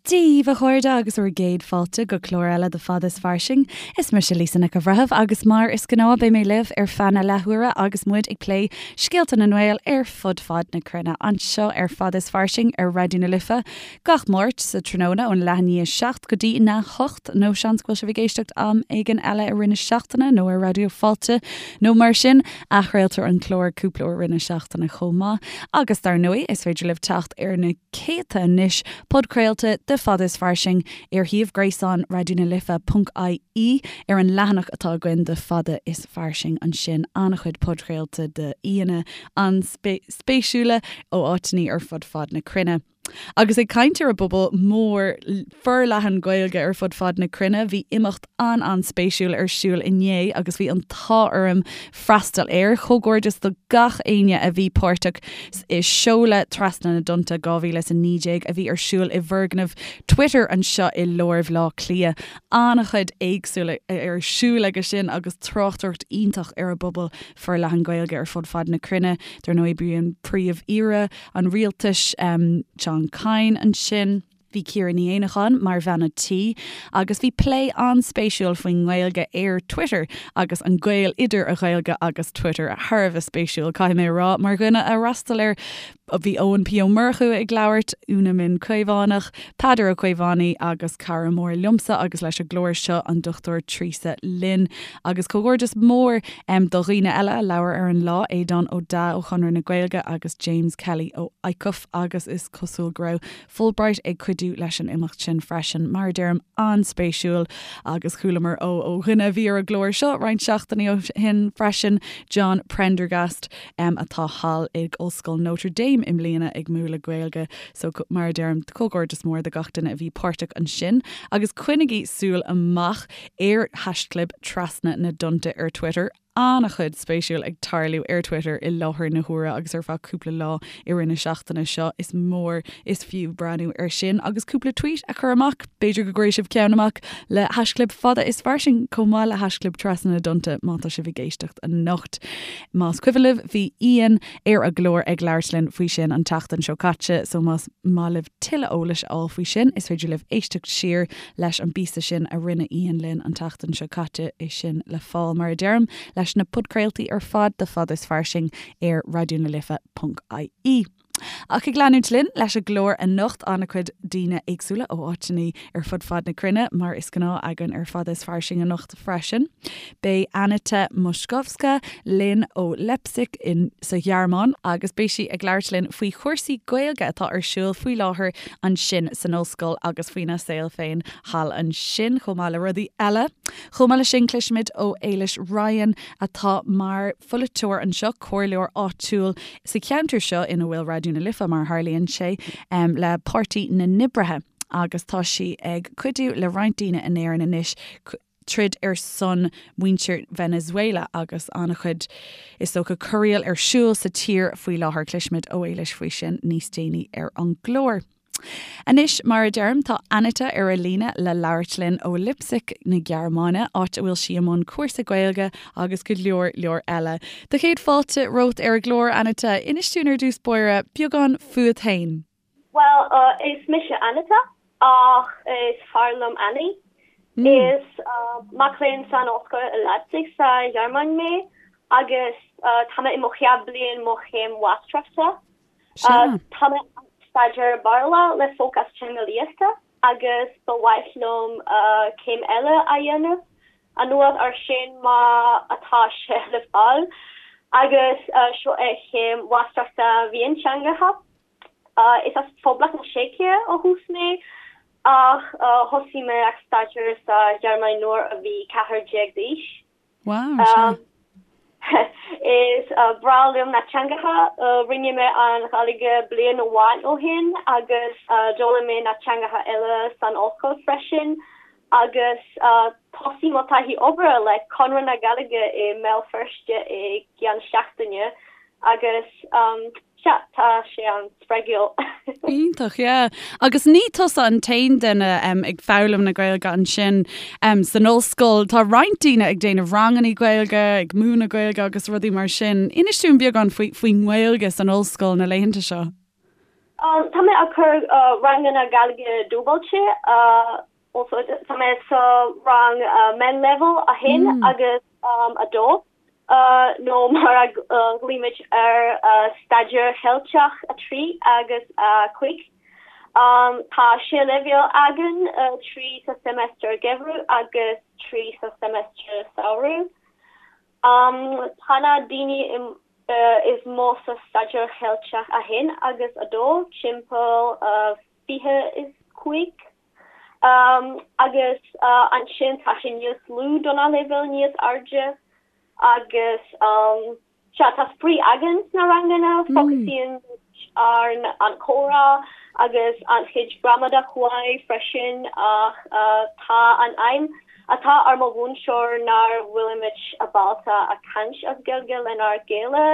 Dia daoibh, a chairde, agus bhur gcéad fáilte go clár eile de Fada is Fairsing. Is mise Lisa Nic an Bhreithimh agus mar is gnáth beidh mé libh ar feadh na leathuaire agus muid ag plé scéalta na nGael ar fud fad na cruinne anseo ar Fada is Fairsing ar Raidió na Life gach Máirt sa tráthnóna ón leath i ndiaidh 7 go dtí a 8 nó seans go bhfuil sibh ag éisteacht am éigin eile i rith na seachtaine nó ar Raidió Fáilte nó mar sin. Athchraoltar an clár cúpla uair i rith na seachtaine chomh maith agus dar ndóigh is féidir libh teacht ar na céadta anois podchraolta de Fada is Fairsing ar shuíomh gréasáin Raidió na Life ponc ie ar an leathanach atá againn de Fada is Fairsing ansin an-chuid podchraolta de aíonna an-spéisiúla ó áiteanna ar fud fad na cruinne. Agus ag caint ar an bpobal mór forleathan Gaeilge ar fud fad na cruinne, bhí imeacht an-an-spéisiúil ar siúl inné agus bhí an t-ádh orm freastal air. Comhghairdeas do gach éinne a bhí páirteach i seoladh Trasna na dTonnta 2019 a bhí ar siúl i bhfoirgneamh Twitter anseo i lár Bhaile Átha Cliath. An-chuid éagsúil ar siúl aige sin agus tráchtaireacht iontach ar an bpobal forleathan Gaeilge ar fud fad na cruinne. Dar ndóigh bhí an Príomh-Aoire an Rialtais, John Kyne ansin. Bhí Ciara Ní Éanacháin mar bhean an tí agus bhí plé an-spéisiúil faoin nGaeilge ar Twitter agus an gaol idir an Ghaeilge agus Twitter. Thar a bheith spéisiúil, caithfidh mé a rá, mar dhuine a fhreastail air. Bhí Eoin P Ó Murchú ag labhairt, Úna Minh Caomhánach, Peadar Ó Caomhánaigh agus cara mór liomsa agus leis an gclár seo, an Dr Treasa Lynn. Agus comhghairdeas mór do dhaoine eile a labhair ar an lá, Aodán Ó Deá ó Chonradh na Gaeilge agus James Kelly ó ICUF agus is cosúil go raibh Fulbright ag cuidiú leis an imeacht sin freisin. Mar a deirim, an-spéisiúil agus chualamar ó ó dhuine a bhí ar an gclár seo roinnt seachtainí ó shin freisin, John Prendergast, atá thall ag Ollscoil Notre Dame i mbliana ag múineadh Gaeilge. So, mar a deirim, comhghairdeas mór do gach duine a bhí páirteach ansin agus coinnigí súil amach ar haischlib Trasna na dTonnta ar Twitter. An-chuid spéisiúil ag tarlú ar Twitter i láthair na huaire agus ar feadh cúpla lá i rith na seachtaine seo. Is mór is fiú breathnú air sin agus cúpla tweet a chur amach. B'fhéidir go gcuirfidh sibh ceann amach le haischlib Fada is Fairsing chomh maith le haischlib Trasna na dTonnta má tá sibh ag éisteacht anocht. Más cuimhin libh bhí Ian ar an gclár ag labhairt linn faoi sin an tseachtain seo caite so más maith libh tuilleadh eolais a fháil faoi sin is féidir libh éisteacht siar leis an bpíosa sin a rinne Ian linn an tseachtain seo caite, é sin le fáil, mar a deirim, leis na podchraoltaí ar fad de Fada is Fairsing ar Raidió na Life ponc ie. Ach ag leanúint linn leis an gclár anocht, an-chuid daoine éagsúla ó áiteanna ar fud fad na cruinne, mar is gnáth againn ar Fada is Fairsing anocht freisin. Beidh Anita Moszkowska linn ó Leipzig in sa Ghearmáin agus beidh sí ag labhairt linn faoi chúrsaí Gaeilge atá ar siúl faoi láthair ansin san ollscoil agus faoina saol féin thall ansin, chomh maith le rudaí eile. Chomh maith leis sin, cloisfimid ó Éilis Ryan atá mar pholaiteoir anseo, comhairleoir áitiúil sa cheantar seo ina bhfuil Raidió na Life, mar a tharlaíonn sé, le Páirtí na nOibrithe agus tá sí ag cuidiú le roinnt daoine in Éirinn anois troid ar son muintir Venezuela agus an-chuid, is dócha, corraíl ar siúl sa tír faoi láthair. Cloisfimid ó Éilis faoi sin níos déanaí ar an gclár. Anois, mar a deirim, tá Anita ar an líne le labhairt linn ó Leipzig na Gearmáine, áit a bhfuil sí i mbun cúrsa Gaeilge agus go leor leor eile. Do chéad fáilte romhat ar an gclár, Anita. Inis dúinn ar dtús báire beagán fúat féin. Bhuel, is mise Anita, ach is fearr liom Annie. Is mac léinn san ollscoil i Leipzig sa Ghearmáin mé agus tá mé i mo chéad bliain mo chéim mháistreachta. Tá mé ag staidéar Béarla le fócas teangeolaíochta agus ba mhaith liom céim eile a dhéanamh anuas ar sin má atá sé le fáil agus seo é chéim mháistreachta mhionteangacha. Is as Phoblacht na Seice ó thús mé ach thosaigh mé ag staidéar sa Ghearmáin nuair a bhí 14 d'aois. Wow, sea. Is breá liom na teangacha. Rinne mé an Ghaeilge bliain amháin ó shin agus d'fhoghlaim mé na teangacha eile san ollscoil freisin agus thosaigh mo taithí obair le Conradh na Gaeilge i mBéal Feirste i gceann seachtaine agus sea, tá sé an-spreagúil. Iontach, yeah. Agus ní tusa an t-aon duine ag foghlaim na Gaeilge ansin san ollscoil. Tá roinnt daoine ag déanamh ranganna Gaeilge, ag múineadh Gaeilge agus rudaí mar sin. Inis dúinn beagán faoin nGaeilge san ollscoil na laethanta seo. Tá mé ag cur ranganna Gaeilge dúbailte, also tá mé sa rang meánleibhéal 1 agus 2, nó mar a ghlaoimid air Staidéar Cheilteach 3 agus 5. Tá sé leibhéal againn, 3 sa seimeastar geimhridh agus 3 sa seimeastar samhraidh. Tá na daoine is mó sa Staidéar Cheilteach 1 agus 2, timpeall 25, agus ansin tá sé níos lú do na leibhéil níos airde agus sea, tá spraoi againn sna ranganna, fócasaíonn muid ar an chomhrá agus an chuid gramadach uaidh freisin ach tá an aidhm atá ar mo mhúinteoir nár bhfuilimid ábalta a caint as Gaeilge lenár gcéile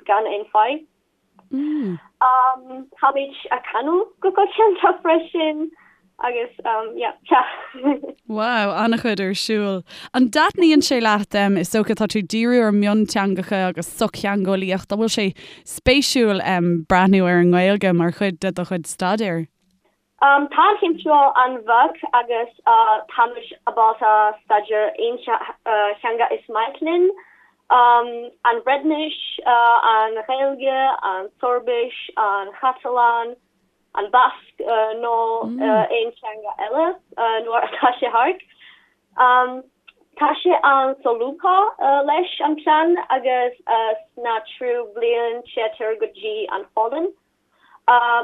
gan aon fadhb. Táimid ag canadh go coitianta freisin agus yeah, sea. Wow, an-chuid ar siúl. An dtaitníonn sé leat, is dócha tá tú ag díriú ar mionteangacha agus sochtheangeolaíocht, an bhfuil sé spéisiúil breathnú ar an nGaeilge mar chuid de do chuid staidéir? Tá an chéim seo an-bheag agus táimid ábalta staidéar aon theanga is maith linn, an Bhreatnais, an Ghaeilge, an tSoirbis, an Chatalán, an Basque nó aon teanga eile nuair atá sé thart. Tá sé an-solúbtha leis an plean agus sna tríú bliain téitear go dtí an Pholainn.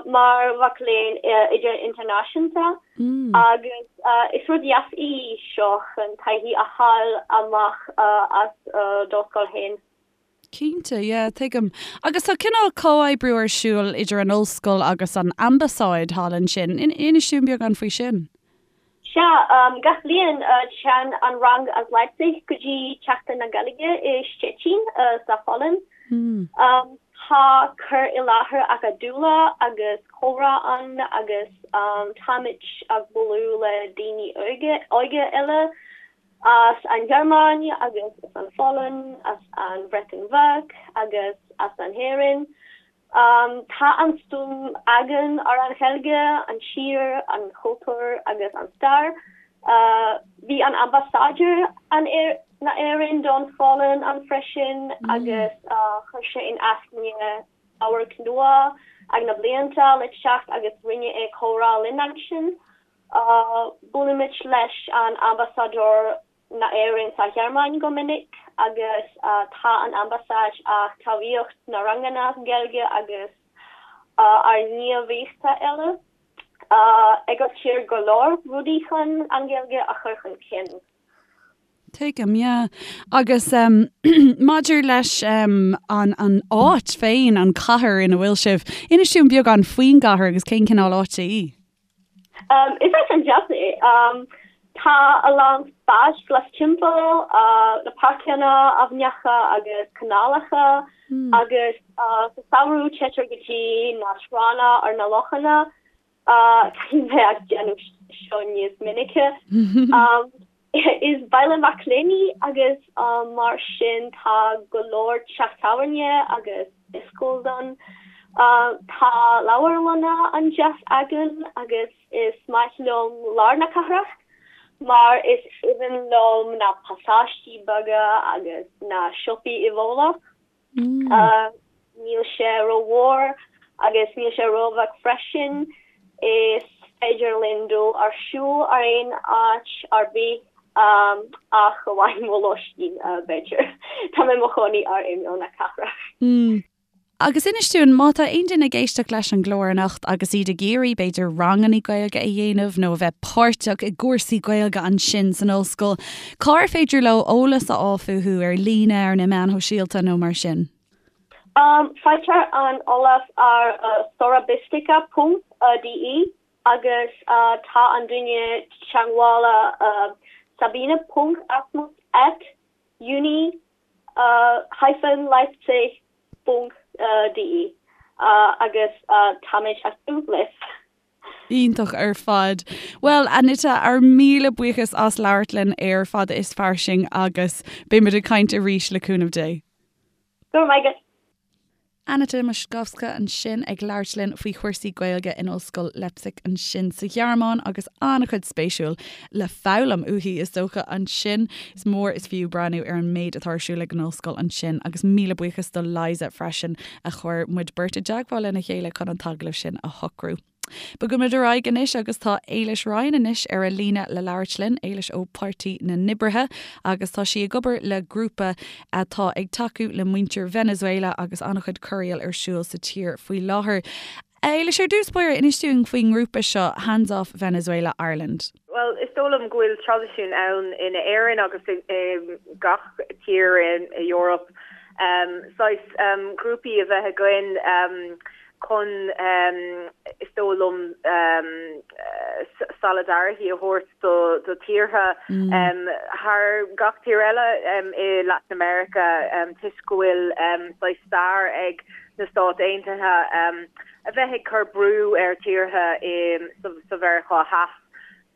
mar mhac léinn idirnáisiúnta agus is rud deas í seo chun taithí a fháil amach as do scoil féin. Cinnte, yeah, tuigim. Agus tá cineál comhoibriú ar siúl idir an ollscoil agus an ambasáid thall ansin. Inis dúinn beagán faoi sin. Sea, gach bliain téann an rang as Leipzig go dtí Seachtain na Gaeilge i Stettin sa Pholainn. Tá cur i láthair acadúla agus comhrá ann agus táimid ag bualadh le daoine óga eile as an Ghearmáin agus as an Pholainn, as an Bhreatain Bheag agus as an Éirinn. Tá an-suim againn ar an Ghaeilge, an tír, an chultúr agus an stair. Bhí an ambasáideoir na Éireann don Pholainn ann freisin agus chuir sé in aithne amharc nua ag na blianta le teacht agus rinne é comhrá linn ansin. Buailimid leis an ambasáideoir na Éireann sa Ghearmáin go minic agus tá an ambasáid ag tacaíocht na ranganna Gaeilge agus ár ngníomhaíochtaí eile. Eagraítear go leor rudaí chun an Ghaeilge a chur chun cinn. Tuigim, yeah. Agus maidir leis an an áit féin, an cathair ina bhfuil sibh, inis dúinn beagán faoin gcathair agus cén cineál áite í? Is áit an-deas é. Tá a lán spáis glas timpeall, na páirceanna, aibhneacha agus canálacha agus sa samhradh téitear go dtí na tránna ar na lochanna. Caithfidh mé ag déanamh seo níos minice. Is baile mac léinn í agus mar sin tá go leor teach tábhairne agus dioscos ann. Tá leabharlanna an-deas againn agus is maith liom lár na cathrach mar is aoibhinn liom na pasáistí beaga agus na siopaí i bhfolach. Níl sé rómhór agus níl sé róbheag freisin. Is féidir linn dul ar siúl ar aon áit ar bith ach amháin mo lóistín, b'fhéidir. Tá mé i mo chónaí ar imeall na cathrach. Agus inis dúinn, má tá aon duine ag éisteacht leis an gclár anocht agus iad ag iarraidh, b'fhéidir, ranganna Gaeilge a dhéanamh nó a bheith páirteach i gcúrsaí Gaeilge ansin san ollscoil, Cár féidir leo eolas a fháil fúthu, ar líne, ar na meáin shóisialta nó mar sin? Faightear an eolas ar sorabistika ponc de agus tá an duine teagmhála Sabine ponc Asmus at uni hyphen Leipzig ponc de agus táimid ag tnúth libh. Iontach ar fad. Bhuel, Anita, ár míle buíochas as labhairt linn ar Fada is Fairsing agus beimid ag caint arís le cúnamh Dé. Go raibh maith agat. Anita Moszkowska ansin ag labhairt linn faoi chúrsaí Gaeilge in Ollscoil Leipzig ansin sa Ghearmáin agus an-chuid spéisiúil le foghlaim uaithi is dócha ansin. Is mór is fiú breathnú ar an méid atá ar siúl ag an ollscoil ansin agus míle buíochas do Liza freisin a chuir muid beirt i dteagmháil lena chéile chun an t-agallamh sin a shocrú. Bogaimid ar aghaidh anois agus tá Éilis Ryan anois ar an líne le labhairt linn, Éilis ó Páirtí na nOibrithe agus tá sí ag obair le grúpa atá ag tacú le muintir Venezuela agus an-chuid corraíl ar siúl sa tír faoi láthair. Éilis, ar dtús báire, inis dúinn faoin ngrúpa seo, Hands Off Venezuela Ireland. Bhuel, is dóigh liom go bhfuil traidisiún ann in Éirinn agus i gach tír in Eoraip saghas grúpaí a bheith againn chun, is dóigh liom, solidarity a thabhairt do tíortha thar gach tír eile i Latin America toisc go bhfuil saghas stair ag na Stáit Aontaithe a bheith ag cur brú ar tíortha sa Mheiriceá Theas.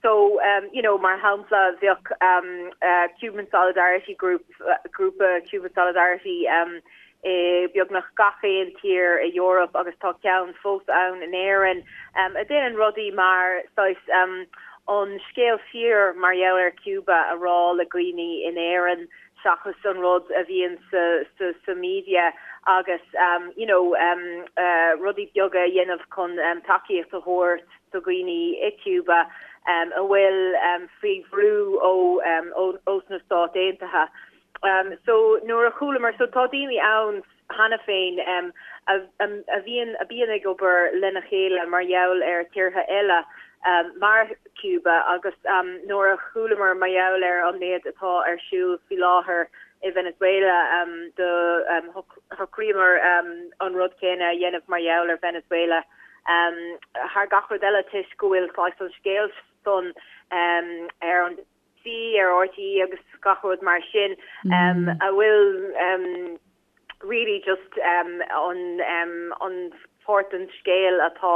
So, you know, mar shampla, bheadh Cuban Solidarity Group, grúpa Cuban Solidarity i beagnach gach aon tír i Eoraip agus tá ceann fós ann in Éirinn, a déanann rudaí mar saghas an scéal fíor mar gheall ar Cuba a rá le dhaoine in Éirinn seachas an rud a bhíonn sa sa media agus you know rudaí beaga a dhéanamh chun tacaíocht a thabhairt do dhaoine i Cuba a bhfuil faoi bhrú ó ós na Stáit Aontaithe. So nuair a chualamar, so tá daoine ann cheana féin a a bhíonn a bíonn ag obair lena chéile mar gheall ar tíortha eile mar Cuba agus nuair a chualamar mar gheall ar an méid atá ar siúl faoi láthair i Venezuela do shocraíomar an rud céanna a dhéanamh mar gheall ar Venezuela. Thar gach rud eile toisc go bhfuil saghas an scéal san ar an BBC, ar RTÉ agus gach rud mar sin a bhfuil really just an an pháirt den scéal atá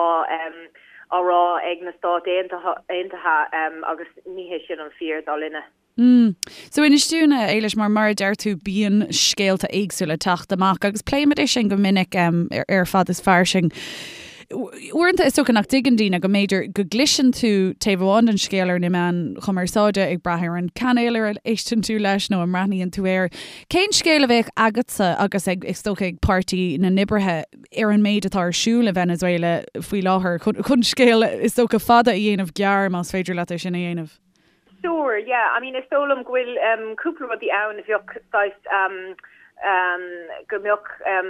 á rá ag na Stáit Aontaithe agus ní hé sin an fíor dar linne. Mm. So inis dúinn, a Éilis, mar mar a deir tú bíonn scéalta éagsúla ag teacht amach agus pléimid é sin go minic um, ar, ar Fad is Fairsing. Uaireanta is dócha nach dtuigeann daoine go mb'fhéidir go gcloiseann tú taobh amháin den scéal ar na meáin chumarsáide ag brath ar an cainéal ar a éisteann tú leis nó a mbreathnaíonn tú air. Cén scéal a bheadh agatsa agus ag is dócha ag Páirtí na nOibrithe ar an méid atá ar siúl i Venezuela faoi láthair chun, chun scéal is dócha fada a dhéanamh gearr más féidir leat é sin a dhéanamh? Sure, yeah, I mean is dóigh liom go bhfuil um cúpla rudaí ann a bheadh saghas um um go mbeadh um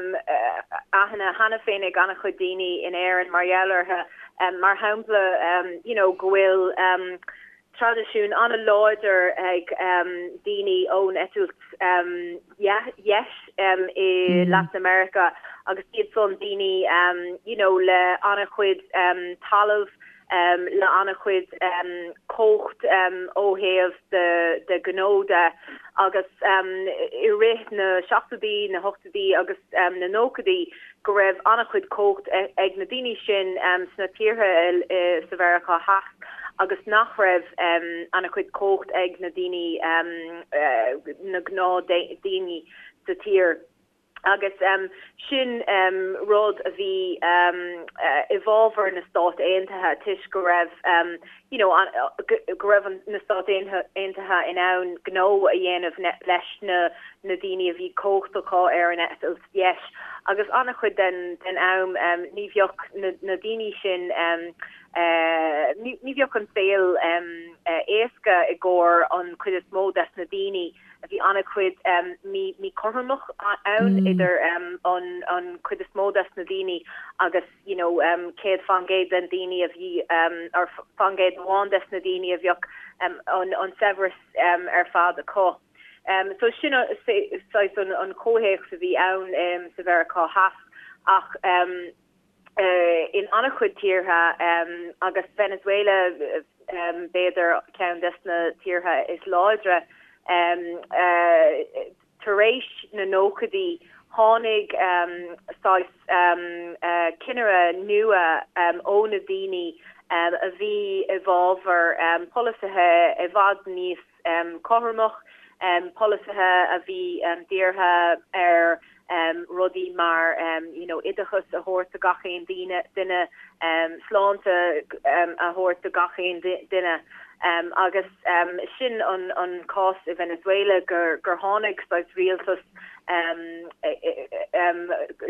aithne cheana féin ag an-chuid daoine in Éirinn mar gheall orthu. Um mar shampla um you know go bhfuil um traidisiún an-láidir ag um daoine ón eitilt um dheis um i Latin America agus iad san daoine um you know le an-chuid um talamh le an-chuid cumhacht ó thaobh de gnó de agus i rith na seachtóidí, na hochtóidí agus na nóchaidí go raibh an-chuid cumhacht ag na daoine sin sna tíortha sa Mheiriceá Theas agus nach raibh an-chuid cumhacht ag na daoine, na gnáthdhaoine sa tír. Agus sin rud a bhí i bhfabhar na Stát Aontaithe toisc go raibh you know go raibh na Stáit Aontaithe in ann gnó a dhéanamh leis na na daoine a bhí cumhacht acu ar an eitilt dheis. Agus an-chuid den den am ní bheadh na na daoine sin ní bheadh an saol éasca i gcomhair an chuid is mó des na daoine. Bhí an-chuid míchothromacht ann idir an chuid is mó des na daoine agus you know 100% den daoine a bhí or faoin gcéad amháin des na daoine a bheadh an saibhreas ar fad acu. So sin saghas an comhthéacs a bhí ann sa Mheiriceá Theas ach in an-chuid tíortha, agus Venezuela b'fhéidir ceann des na tíortha is láidre, tar éis na nóchaidí tháinig saghas cinnire nua ó na daoine a bhí i bhfabhar polasaithe i bhfad níos cothromach, polasaithe a bhí dírithe ar. rudaí mar you know oideachas a thabhairt do gach aon daoine, duine, sláinte a thabhairt do gach aon duine. Agus sin an cás i Venezuela gur tháinig saghas rialtas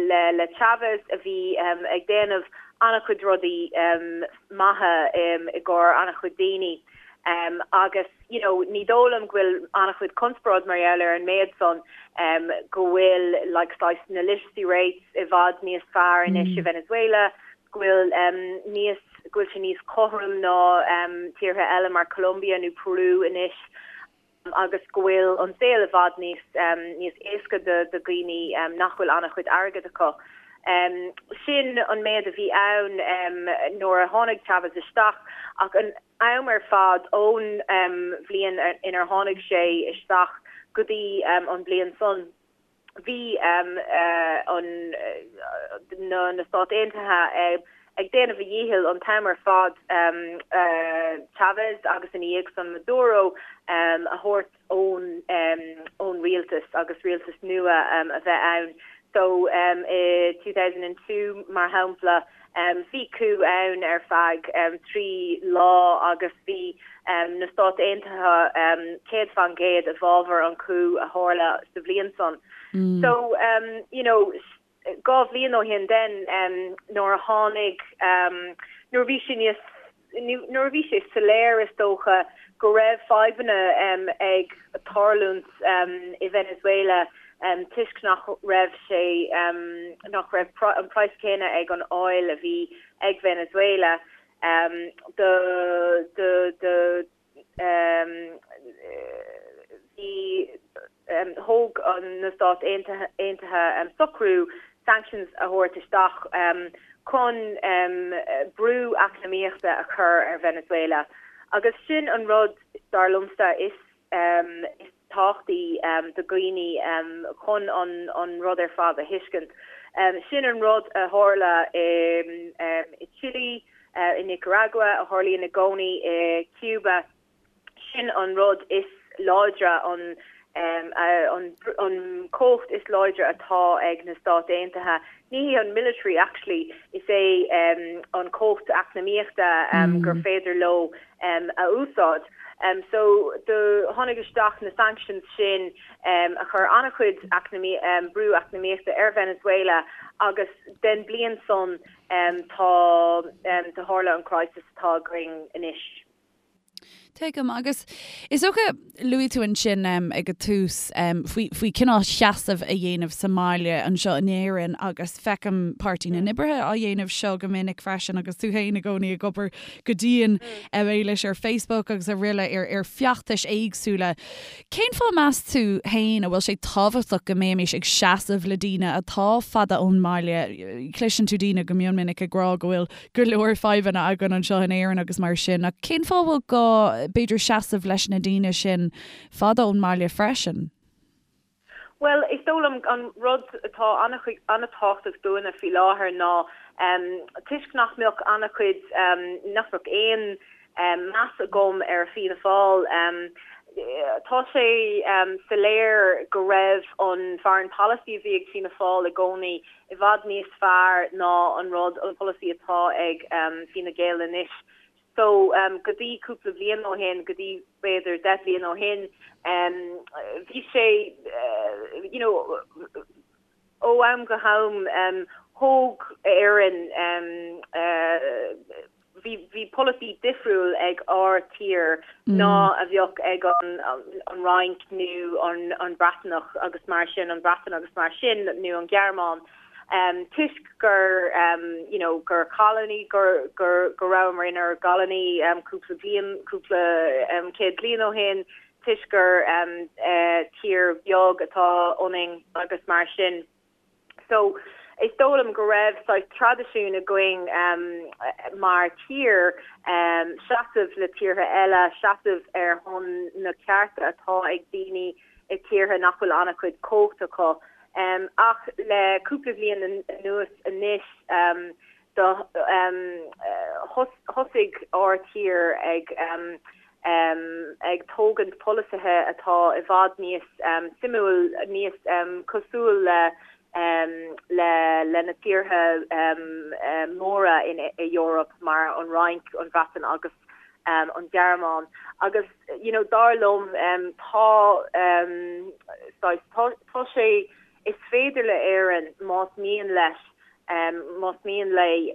le Chavez a bhí ag déanamh an-chuid rudaí maithe i gcomhair an-chuid daoine agus you know ní dóigh liom go bhfuil an-chuid conspóid mar gheall ar an méid san go bhfuil like saghas na literacy rates i bhfad níos fearr anois i Venezuela, go bhfuil níos go bhfuil sé níos cothrom ná tíortha eile mar Colombia nó Peru anois. agus go bhfuil an saol i bhfad níos níos éasca do dhaoine nach bhfuil an-chuid airgid acu. Sin an méid a bhí ann nuair a tháinig Chavez isteach ach an am ar fad ón bhliain inar tháinig sé isteach go dtí an bhliain san, bhí na Stáit Aontaithe ag déanamh a dhícheall an t-am ar fad Chavez agus ina dhiaidh san Maduro a thabhairt ón rialtas agus rialtas nua a bheith ann. So i 2002 mar shampla bhí coup ann ar feadh 3 lá agus bhí na Stáit Aontaithe 100% i bhfabhar an coup a tharla sa bhliain san. So you know 2 bhliain ó shin then nuair a tháinig nuair a bhí sé níos nuair a bhí sé soiléir is dócha go raibh fadhbanna ag tarlúint i Venezuela toisc nach raibh sé nach raibh an praghas céanna ag an oil a bhí ag Venezuela do do do bhí thóg na Stáit Aontaithe socrú sanctions a thabhairt isteach chun brú eacnamaíochta a chur ar Venezuela. Agus sin an rud, dar liomsa, is tábhachtaí do dhaoine chun an rud ar fad a thuiscint. Sin an rud a tharla i Chile, i Nicaragua, a tharlaíonn i gcónaí i Cuba. Sin an rud is láidre, an an chumhacht is láidre atá ag na Stáit Aontaithe. Ní hé an military actually, is é an chumhacht eacnamaíochta gur féidir leo a úsáid. So do tháinig isteach na sanctions sin a chuir an-chuid brú eacnamaíochta ar Venezuela agus den bliain san tá do tharla an crisis atá againn anois. Tuigim. Agus is dócha, luaigh tú ansin ag an tús faoi, faoi cineál seasamh a dhéanamh sa mbaile anseo in Éirinn agus feicim Páirtí na nOibrithe á dhéanamh seo go minic freisin agus tú féin i gcónaí ag obair go dian leis ar Facebook agus araile ar, ar feachtais éagsúla. Cén fáth meas tú féin a bhfuil sé tábhachtach go mbeimis ag seasamh le daoine atá fada ón mbaile? Cloiseann tú daoine go mion minic ag rá go bhfuil go leor fadhbanna againn anseo in Éirinn agus mar sin, ach cén fáth a bhfuil gá, b'fhéidir, seasamh leis na daoine sin fada ón mbaile freisin? Bhuel, is dóigh liom an rud atá an-tábhachtach dúinne faoi láthair ná toisc nach mbeadh an-chuid, nach mbeadh aon meas agam ar Fianna Fáil, tá sé soiléir go raibh an foreign policy a bhí ag Fianna Fáil i gcónaí i bhfad níos fearr ná an rud, an polasaí atá ag Fine Gael anois. So, go dtí cúpla bliain ó shin, go dtí b'fhéidir 10 bliain ó shin, bhí sé, you know, ó am go ham, thóg Éirinn, bhí, bhí polasaí difriúil ag ár tír ná a bheadh ag an, an Fhrainc nó an, an Breatnach agus mar sin, an Bhreatain agus mar sin, nó an Ghearmáin. toisc gur you know gur colony gur gur go rabhamar inár gcolony cúpla bliain cúpla céad bliain ó shin toisc gur tír bheag atá ionainn agus mar sin. So is dóigh liom go raibh saghas traidisiún againn mar tír seasamh le tíortha eile, seasamh ar shon na cearta atá ag daoine i tíortha nach bhfuil an-chuid cumhacht acu. Ach le cúpla bliain anuas anois do thosaigh ár tír ag ag tógaint polasaithe atá i bhfad níos suimiúil, níos cosúil le. le le na tíortha móra in Eoraip mar an Fhrainc, an Bhreatain agus an Ghearmáin agus you know dar liom tá saghas tá tá sé is féidir le Éirinn más mian leis más mian léi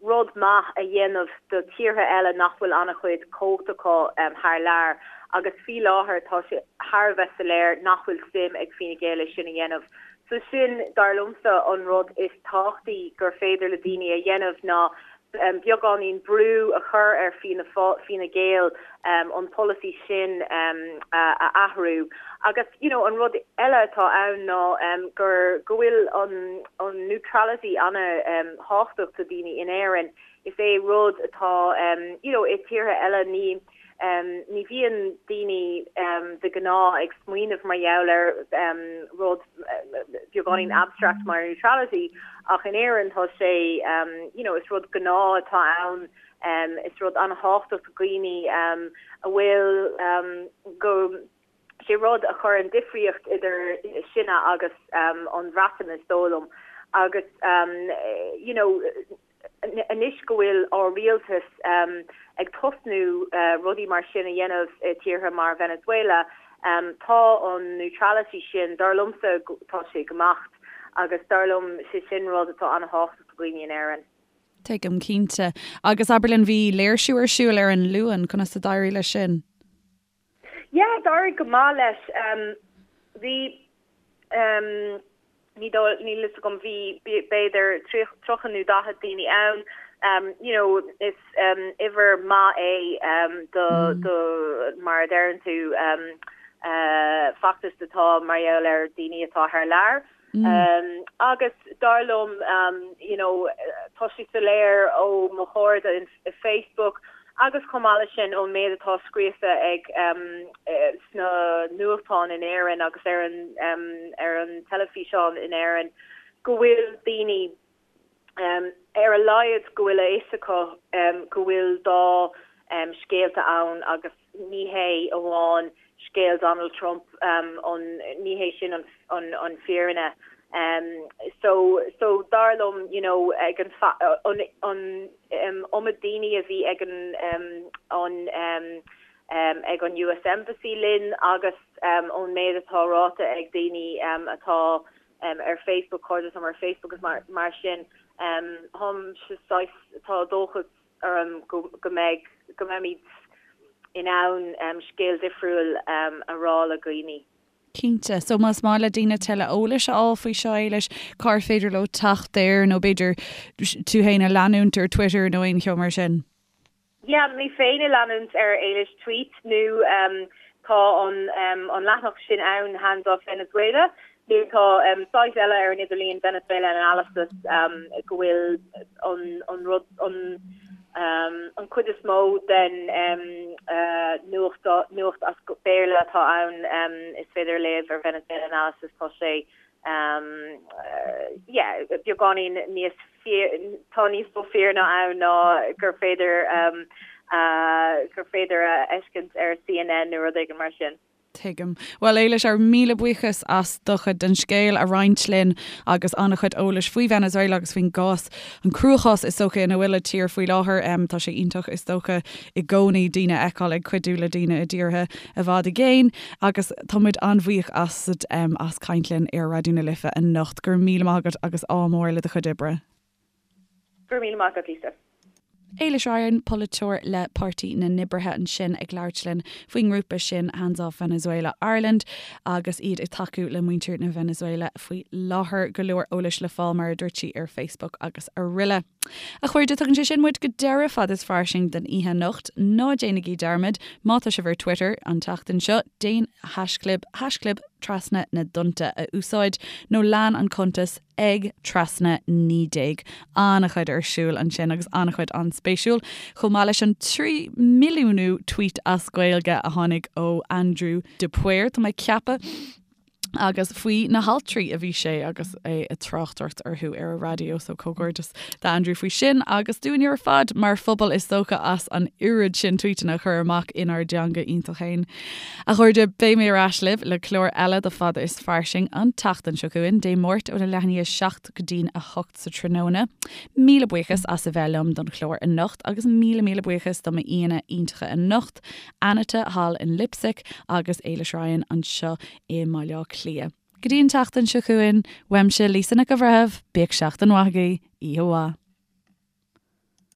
rud maith a dhéanamh do tíortha eile nach bhfuil an-chuid cumhacht acu thar lear agus faoi láthair tá sé thar a bheith soiléir nach bhfuil suim ag Fine Gael é sin a dhéanamh. So sin, dar liomsa, an rud is tábhachtaí gur féidir le daoine a dhéanamh ná beagáinín brú a chur ar Fianna Fine Gael an polasaí sin a athrú. Agus you know an rud eile atá ann ná gur go bhfuil an an neutrality an-thábhachtach do daoine in Éirinn. Is é rud atá you know i tíortha eile ní Ní bhíonn daoine de ghnáth ag smaoineamh mar gheall ar rud beagáinín abstract mar neutrality ach in Éirinn tá sé you know is rud gnáth atá ann, is rud an-thábhachtach do dhaoine a bhfuil go sé rud a chuireann difríocht idir sinne agus an Bhreatain is dóigh liom agus you know Anois go bhfuil ár rialtas ag tosnú rudaí mar sin a dhéanamh i tíortha mar Venezuela, tá an neutrality sin, dar liomsa, tá sé ag imeacht agus dar liom sé sin rud atá an-thábhachtach do dhaoine in Éirinn. Tuigim, cinnte. Agus abair linn, bhí léirsiú ar siúl ar an Luan, conas a d'éirigh leis sin? Yeah, d'éirigh go maith leis. Bhí, ní dóigh, níl fhios agam, bhí b'fhéidir 30 nó 40 daoine ann. You know, is uimhir maith é do, do, mar a deireann tú, feachtas atá mar gheall ar daoine atá thar lear. Agus dar liom, you know, tá sé soiléir ó mo chairde i Facebook agus chomh maith leis sin ón méid atá scríofa ag sna nuachtáin in Éirinn agus ar an ar an teilifíseán in Éirinn go bhfuil daoine ar a laghad go bhfuil a fhios acu go bhfuil dá scéalta ann agus ní hé amháin scéal Donald Trump an ní hé sin an an fírinne. So so dar liom you know ag an an an iomad daoine a bhí ag an an ag an US Embassy linn agus ón méid atá ráite ag daoine atá ar Facebook, cairde liom ar Facebook agus mar mar sin, táimse saghas tá dóchas orm go mbeidh, go mbeimid in ann scéal difriúil a rá le dhaoine. Cinnte. So más maith le daoine tuilleadh eolais a fháil faoi seo, Éilis, cár féidir leo teacht air nó b'fhéidir tú féin a leanúint ar Twitter nó aon cheo mar sin? Yeah, mé féin a leanúint ar Éilis Tweet nó tá an an leathanach sin ann Hands Off Venezuela nó tá site eile ar an idirlíon Venezuela Analysis go bhfuil an an rud an an chuid is mó den nuacht nuacht as Béarla atá ann is féidir a léamh ar Venezuela Analysis tá sé yeah beagáinín níos tá níos mó fírinne ann ná gur féidir gur féidir a fheiscint ar CNN nó rud éigin mar sin. Tuigim. Bhuel, Éilis, ár míle buíochas as do chuid den scéal a roinnt linn agus an-chuid eolais faoi Venezuela agus faoin gcás, an cruachás is dócha ina bhfuil an tír faoi láthair. Tá sé iontach is dócha i gcónaí daoine a fheiceáil ag cuidiú le daoine i dtíortha i bhfad i gcéin agus tá muid an-bhuíoch asat as caint linn ar Raidió na Life anocht. Go raibh míle maith agat agus ádh mór le do chuid oibre. Go raibh míle maith agat, Lisa. Éilis Ryan, polaiteoir le Páirtí na nOibrithe ansin ag labhairt linn faoin ngrúpa sin Hands Off Venezuela Ireland agus iad ag tacú le muintir na Venezuela faoi láthair. Go leor eolais le fáil mar a dúirt sí ar Facebook agus aroile. A chairde, tugann sé sin muid go deireadh Fad is Fairsing don oíche anocht. Ná déanaigí dearmad, má tá sibh ar Twitter an tseachtain seo, déan haischlib, haischlib Trasna na dTonnta a úsáid, nó lean an cuntas ag Trasna 19. An-chuid ar siúl ansin agus an-chuid an-spéisiúil, chomh maith leis an 3 milliúnú tweet as Gaeilge a tháinig ó Andrew de Paor, tá mé ag ceapadh. Agus faoi na haltraí a bhí sé agus é ag tráchtaireacht orthu ar an raidió, so comhghairdeas d'Andrew faoi sin agus dúinne ar fad mar phobal is dócha as an oiread sin tvuíteanna a chur amach inár dteanga iontach féin. A chairde, beidh mé ar ais libh le clár eile de Fada is Fairsing an tseachtain seo chugainn, Dé Máirt óna leath i ndiaidh 7 go dtí'n 8 sa tráthnóna. Míle buíochas as a bheith liom don chlár anocht agus míle míle buíochas do m'aíonna iontacha anocht, Anita thall in Leipzig agus Éilis Ryan anseo i mBaile Átha Cliath. Go dtí an tseachtain seo chugainn, uaimse Lisa Nic an Bhreithimh, bíodh seachtain mhaith agaibh, oíche mhaith.